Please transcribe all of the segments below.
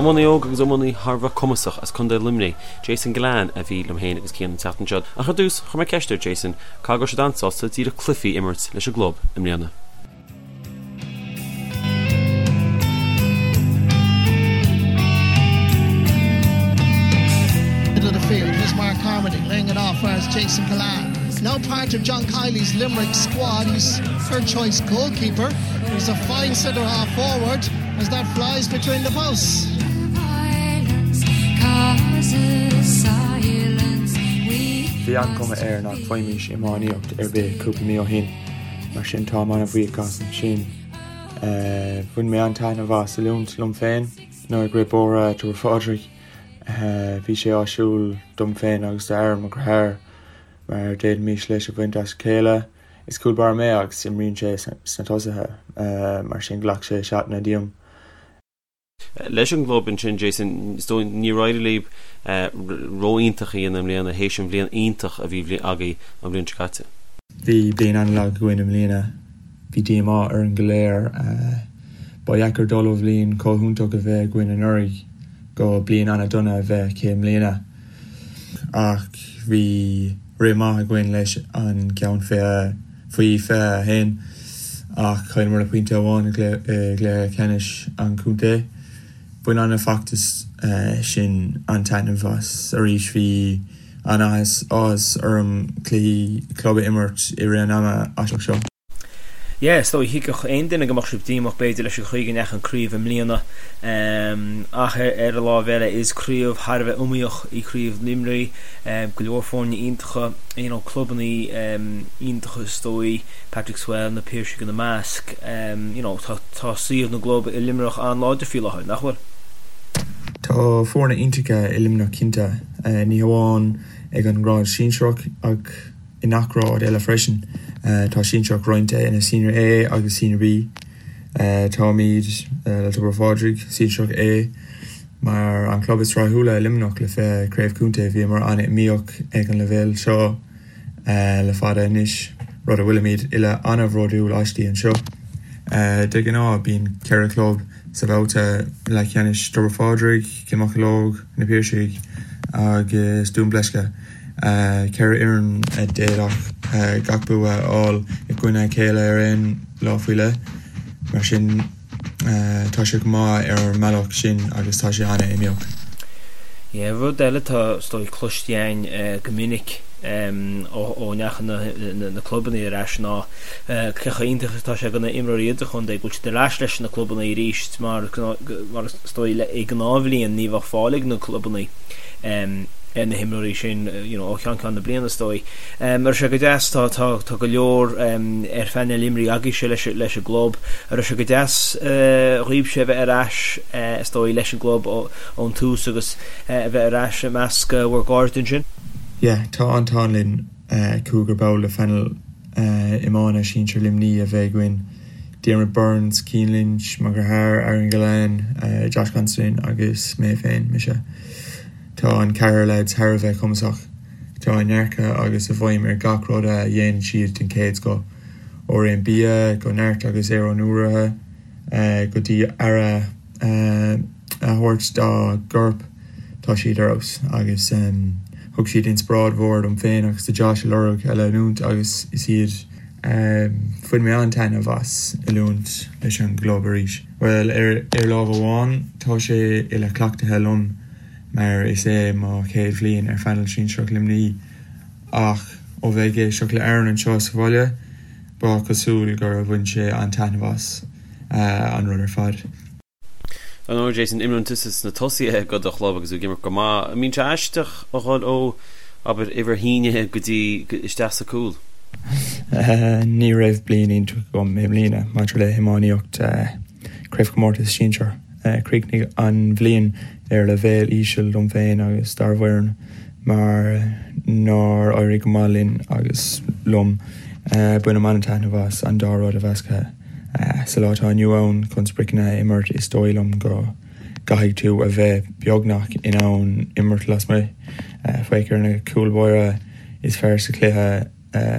Iománaí óg agus iománaí thar a bheith cumasach as Contae Luimnigh, Jason Gillane a bhí liom féin agus Cian an tseachtain seo. Ach ar dtús, chuir mé ceist ar Jason caithfidh go raibh siad an-sásta díreach cluichí a imirt leis an gclub i mbliana. Middle of the field, here's Mark Carmody laying it off whereas Jason Gillane. Now part of John Kiely's Limerick squad, he's third choice goalkeeper. He's a fine centre half forward as that flies between the posts. Bhí an-chuma air nach bhfaighimís iomaíocht ar bith cúpla mí ó shin, mar sin táim an-bhuíoch as sin. Bhain mé an-taitneamh as oiliúint liom féin nuair ag rith bóithre Tobar Phádraig. Bhí sé áisiúil dom féin agus d'Aaron, mo dheartháir, mar d'fhéadfaimis leas a bhaint as a chéile. Is cúl báire mé agus imríonn sé sna tosaithe, mar sin ghlac sé seatanna díom. Leis an gclub ansin, Jason, is dóigh níor éirigh libh ró-iontach a dhéanamh i mbliana théis an bhliain iontach a bhí agaibh an bhliain seo caite. Bhí bliain an-lag againn i mbliana. Bhí díomá orainn go léir. Ba dheacair dul ó bhliain chomh hiontach a bheith againn anuraidh go bliain an-dona a bheith aici i mbliana. Ach bhí rith maith againn leis an gceann faoi 21 ach chailleamar le pointe amháin i gcluiche ceannais an chontae. Bhain an feachtas sin an-taitneamh as arís. Bhí an-áthas orm cluichí club a imirt i rith an ama aisteach seo. Yeah, is dóigh, thuigfeadh aon duine go mbeadh sibh díomách b'fhéidir leis an chaoi go ndeachaigh an craobh i mbliana ach ar an lámh eile is craobh thar a bheith iomaíoch í craobh Luimnigh, go leor foirne iontacha, you know, clubanna iontacha is dóigh, Patrickswell, Na Piarsaigh ina measc, you know, tá tá suíomh na gclub i Luimneach an-láidir faoi láthair, nach bhfuil? Tá foirne iontacha i Luimneach cinnte, ní hamháin ag an ngrád sinsearach ach i ngach grád eile freisin. Tá sinsearach roinnte ina Senior A agus Senior B. Táimid le Tobar Phádraig, Sinsearach A, mar an club is rathúla i Luimneach le 20 craobh contae. Bhíomar an-iomaíoch ag an leibhéal seo le fada anois, rud a bhfuilimid uile an-bhródúil aisti anseo. De ghnáth bíonn 4 chlub sa bhabhta leathcheannais, Tobar Phádraig, Cill Mocheallóg, Na Piarsaigh agus Dún Bleisce. 4 fhoireann a d'fhéadfadh gach bua a fháil i gcoinne a chéile ar aon lá faoi leith. Mar sin, tá sé go maith ar an mbealach sin agus tá sé an-iomaíoch. Yeah, rud eile atá is dóigh cloiste againn go minic ó ndeachaigh na clubanna ar ais ná cé chomh iontach is atá sé do na imreoirí idirchontae go bhfuil siad ar ais leis na clubanna arís mar mar is dóigh i ngnáthbhliain ní bheadh fáil ag na clubanna ar na himreoirí sin you know, ó cheann ceann na bliana is dóigh. Um, raibh sé go deas tá, tá, tá go leor um, ar phainéal imreoirí agaibhse leis, leis an gclub. Raibh sé go deas uh, dhaoibhse a bheith ar ais uh, is dóigh leis an gclub ón tús agus uh, a bheith ar ais i measc uh, bhur gcairde ansin? Yeah, tá an t-ádh linn uh, cúigear ball de phainéal uh, iomána sinsir Luimní a bheith againn. Diarmuid Byrnes, Cian Lynch, mo dheartháir Aaron Gillane, uh, Josh Considine agus mé féin, mise. Tá an ceathrar leaids thar a bheith cumasach. Tá a ndearcadh agus a bhfeidhm ar gach rud a dhéanann siad den chéad scoth. Ó réim bia, go neart agus aerónúraithe, go dtí aire a thabhairt dá gcorp, tá siad ar fheabhas. Agus thug siad inspioráid mhór dom féin agus do Josh a lorg a leanúint agus is iad. Bhain mé an-taitneamh as oiliúint leis an gclub arís. Bhuel, ar lámh amháin, tá sé uile-chleachtaithe liom mar is é mo chéad bhliain ar phainéal sinsearach Luimní ach ó bheith ag éisteacht le Aaron anseo sa bhaile, ba chosúil gur bhain sé an-taitneamh as an rud ar fad. Ar ndóigh, Jason, imríonn tusa sna tosaithe do do chlub agus tú ag imirt go maith. An mbíonn sé aisteach a dhul ó, abair, uimhir a haon go dtí isteach sa cúl? Ní raibh bliain iontach agam i mbliana maidir le hiománaíocht Craobhchomórtas Sinsear. Chríochnaigh an bhliain ar leibhéal íseal dom féin agus dár bhfoireann mar nár éirigh go maith linn agus liom. Bainim an-taitneamh as an dá rud a mheascadh. Sa lá atá inniu ann, chun spriocanna a imirt is dóigh liom go gcaithfidh tú a bheith beagnach in ann imirt lasmuigh. Féach ar na cúil báire is fearr sa chluiche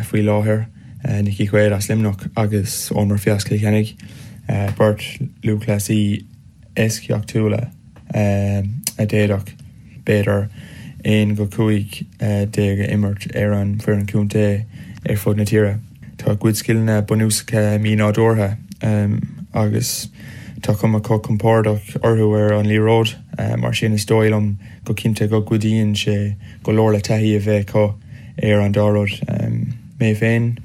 faoi láthair, Nickie Quaid as Luimneach agus Eoin Murphy as Cill Chainnigh, beirt lúthchleasaí eisceachtúla. a d'fhéadfadh, b'fhéidir, 1-15 a imirt ar an bhfoireann contae ar fud na tíre. Tá a gcuid scileanna bunúsacha mí-nádúrtha agus tá cuma chomh compordach orthu ar an liathróid, mar sin is dóigh liom go cinnte go gcuidíonn sé go leor le taithí a bheith acu ar an dá rud. Mé féin,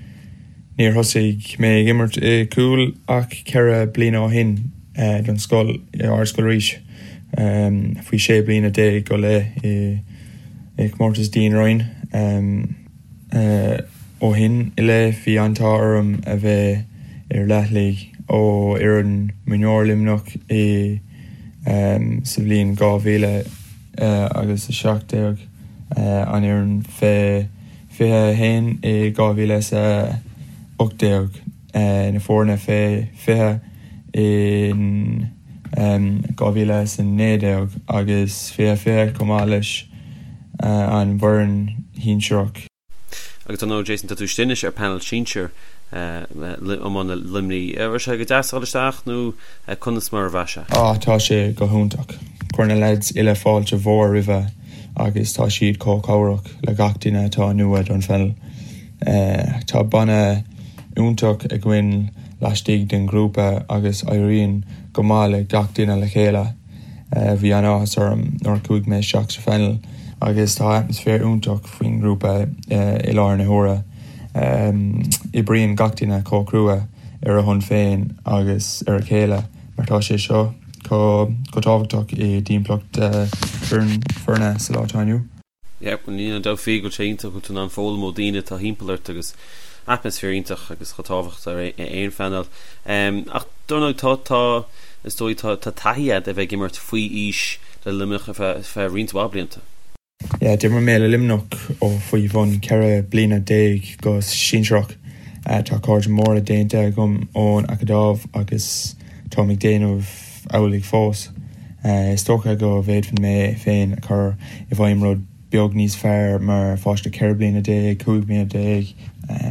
níor thosaigh mé ag imirt i gcúl ach 4 bliana ó shin don scoil, i Ardscoil Rís, faoi 16 bliana go leith i gcomórtas Dean Ryan. Ó shin i leith bhí an t-ádh orm a bheith ar leathlaigh ó fhoireann mionúir Luimneach i sa bhliain 2000 agus 17, an fhoireann fé 21 i 2018, na foirne fé 20 in 2019 agus 2020 chomh maith leis an bhfoireann shinsearach. Agus dar ndóigh Jason, tá tú istigh anois ar panel sinsir iomána Luimnigh. An raibh sé go deas a dhul isteach nó conas mar a bhraith sé? Á, tá sé go hiontach. Chuir na leaids uile fáilte mhór roimhe agus tá siad chomh cabhrach le gach duine atá nua don phainéal. Tá banna iontach againn laistigh den ghrúpa agus éiríonn go maith le gach duine le chéile. Bhí an-áthas orm nuair a chuaigh mé isteach sa phainéal agus tá atmaisféar iontach faoin ngrúpa i láthair na huaire. Oibríonn gach duine chomh crua ar a shon féin agus ar a chéile mar tá sé seo chomh tábhachtach i dtimpeallacht foirne sa lá atá inniu. Yeah, níl aon dabht faoi go bhfuil sé iontach go bhfuil tú in ann foghlaim ó daoine atá thimpeall ort agus atmaisféar iontach agus chomh tábhachtach ar aon phainéal. Ach dar ndóigh tá, tá, is dóigh tá, tá taithí agat a bheith ag imirt faoi aois le Luimneach ar feadh, feadh roinnt mhaith blianta. Yeah, d'imir mé le Luimneach ó faoi bhun 14 bliana go sinsearach. Tá cairde móra déanta agam ón Acadamh agus táim ag déanamh amhlaidh fós. Is dócha go bhféadfainn mé féin a chur i bhfeidhm rud beag níos fearr mar pháiste 14 bliana, 15 bliana.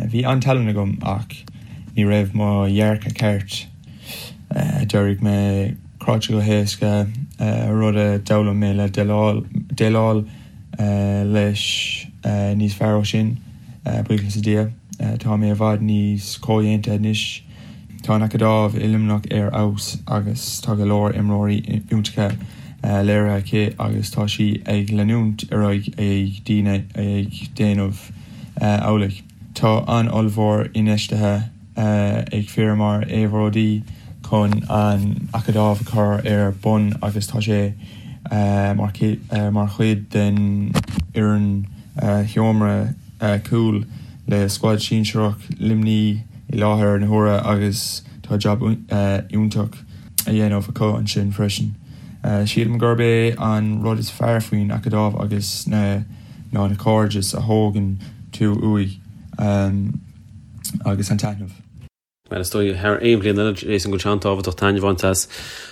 Bhí an-tallann agam ach ní raibh mo dhearcadh ceart. D'éirigh mé cráite go héasca, rud a d'fhoghlaim mé le déileáil leis níos fearr ó sin, buíochas le Dia. Tá mé i bhfad níos comhdhéanta anois. Tá an Acadamh i Luimneach ar fheabhas agus tá go leor imreoirí iontacha léirithe aici agus tá sí ag leanúint ar aghaidh ag daoine ag déanamh amhlaidh. Tá an-ollmhór infheistithe ag fir mar Éibhear O'Dea chun an Acadamh a chur ar bun agus tá sé mar chuid den fhoireann sheomra cúil le scuad sinsearach Luimnigh i láthair na huaire agus tá jab iontach á dhéanamh acu ansin freisin. Sílim gurb é an rud is fearr faoin Acadamh agus na ná na cairdis a thógann tú uaidh agus an taitneamh. Bhuel, is dóigh, thar aon bhliain eile, Jason, go bhfuil sé an-tábhachtach taitneamh a bhaint as.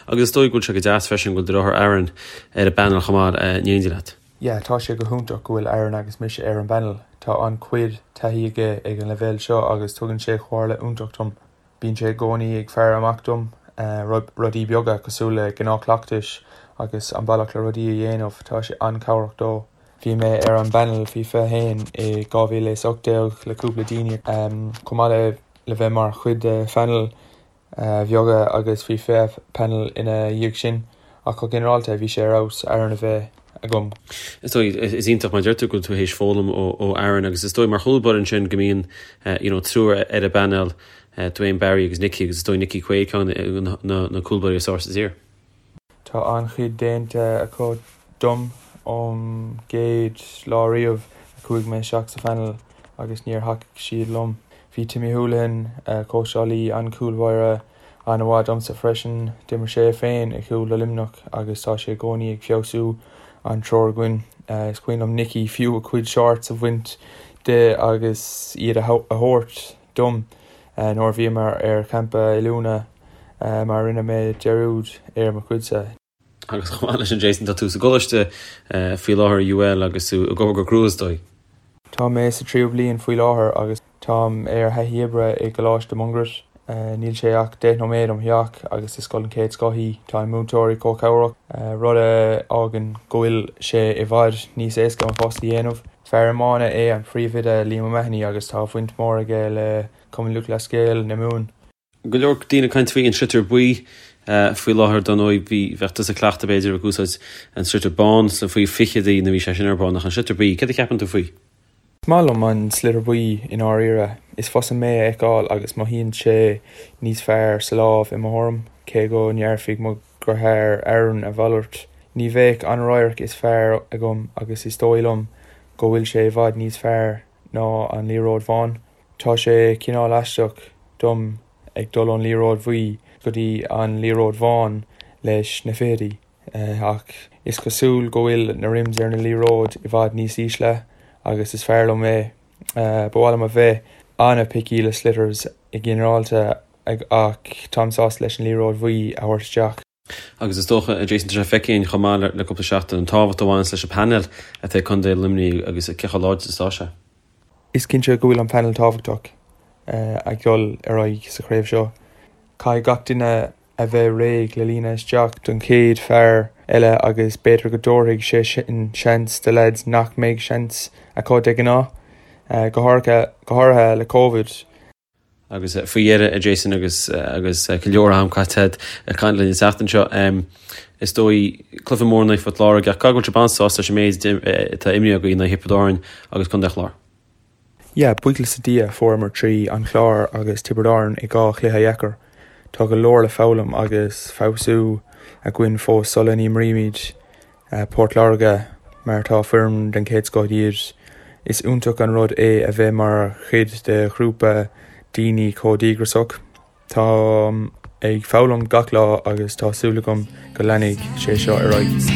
Agus is dóigh go bhfuil sé go deas freisin go bhfuil do dheartháir Aaron ar an bpainéal chomh maith in éindí leat. Yeah, tá sé go hiontach go bhfuil Aaron agus mise ar an bpainéal. Tá an-chuid taithí aige ag an leibhéal seo agus tugann sé comhairle iontach dom. Bíonn sé i gcónaí ag faire amach dom, rudaí beaga cosúil le gnáthchleachtais agus an bealach le rudaí a dhéanamh, tá sé an-chabhrach dó. Bhí mé ar an bpainéal faoi 21 i 2018 le cúpla daoine, chomh maith le bheith mar chuid de phainéil bheaga agus faoi 20 painéal ina dhiaidh sin, ach go ginearálta bhí sé ar fheabhas Aaron a bheith agam. Is dóigh, is iontach mar deir tú go bhfuil tú théis foghlaim ó Aaron agus is dóigh mar chúl báire ansin go mbíonn you know triúr ar an bpainéal, Duane Barry agus Nicky agus is dóigh Nicky Quaid ceann de na cúlbáirí is fearr sa tír. Tá an-chuid déanta acu dom ón gcéad lá riamh a chuaigh mé isteach sa phainéal agus níor thacaigh siad liom. Bhí Timmy Houlihan, cóitseálaí an chúlbáire, an-mhaith domsa freisin. D'imir sé féin i gcúl do Luimneach agus tá sé i gcónaí ag feabhsú an triúr againn. Is cuimhin liom Nicky fiú a chuid shorts a bhaint de agus iad a thabhairt dom nuair a bhíomar ar champa oiliúna mar rinne mé dearúd ar mo chuidse. Agus chomh maith leis sin Jason, tá tú sa gcoláiste faoi láthair i UL agus tú ag obair go crua is dóigh. Tá mé sa tríú bliain faoi láthair agus táim ar thaithí oibre i gColáiste Mungairit. Níl sé ach 10 nóiméad óm theach agus is scoil den chéad scoth í. Tá na múinteoirí chomh cabhrach, rud a fhágann go bhfuil sé i bhfad níos éasca mo phost a dhéanamh. Fear iomána é an príomhoide Liam O'Mahony agus tá baint mhór aige le Cumann Lúthchleas Gael na Mumhan. Go leor daoine ag caint faoi an sliotar buí faoi láthair, dar ndóigh bhí, bheadh tusa cleachta b'fhéidir ag úsáid an sliotar bán sna faoi fichidí nuair a bhí sé sin ar bun ach an sliotar buí, céard a cheapann tú faoi? Is maith liom an sliotar buí i ndáiríre. Is fusa mé a fheiceáil agus mothaíonn sé níos fearr sa lámh i mo thuairim, cé go ndéarfaidh mo dheartháir Aaron a mhalairt. Ní bheadh an radharc is fearr agam agus is dóigh liom go bhfuil sé i bhfad níos fearr ná an liathróid bhán. Tá sé cineál aisteach dom ag dul ón liathróid bhuí go dtí an liathróid bhán leis na fichidí. Ach is cosúil go bhfuil na rims ar na liathróid i bhfad níos ísle agus is fearr liom é. Ba mhaith liom a bheith an-picky le sliotars i ginearálta ach táim sásta leis an liathróid bhuí a thabhairt isteach. Agus is dócha, Jason, tá sé feicthe againn chomh maith le cúpla seachtain an tábhacht a bhaineanns leis an bpainéal atá ag Contae Luimnigh agus cé chomh láidir is atá sé. Is cinnte go bhfuil an painéal tábhachtach ag dul ar aghaidh sa chraobh seo. Caithfidh gach duine a bheith réidh le líonadh isteach don chéad fear eile agus b'fhéidir go dtabharfaidh sé sin seans do leaids nach mbeidh seans acu de ghnáth, go háirithe le Covid. Agus faoi dheireadh, a Jason, agus agus go leor am caite agat ag caint linn an tseachtain seo, is dóigh, cluiche mór in aghaidh Phort Láirge, ach caithfidh go bhfuil sibh an-sásta leis an méid atá imrithe agaibh in aghaidh Thiobraid Árann agus Contae an Chláir. Yeah, buíochas le Dia, fuaireamar trí an Chlár agus Tiobraid Árann i dhá chluiche dheacair. Tá go leor le foghlaim agus feabhsú againn fós sula n-imrímid Port Láirge mar tá foireann den chéad scoth iad. Is iontach an rud é a bheith mar chuid de ghrúpa daoine chomh díograiseach. Táim ag foghlaim gach lá agus tá súil agam go leanfaidh sé seo ar aghaidh.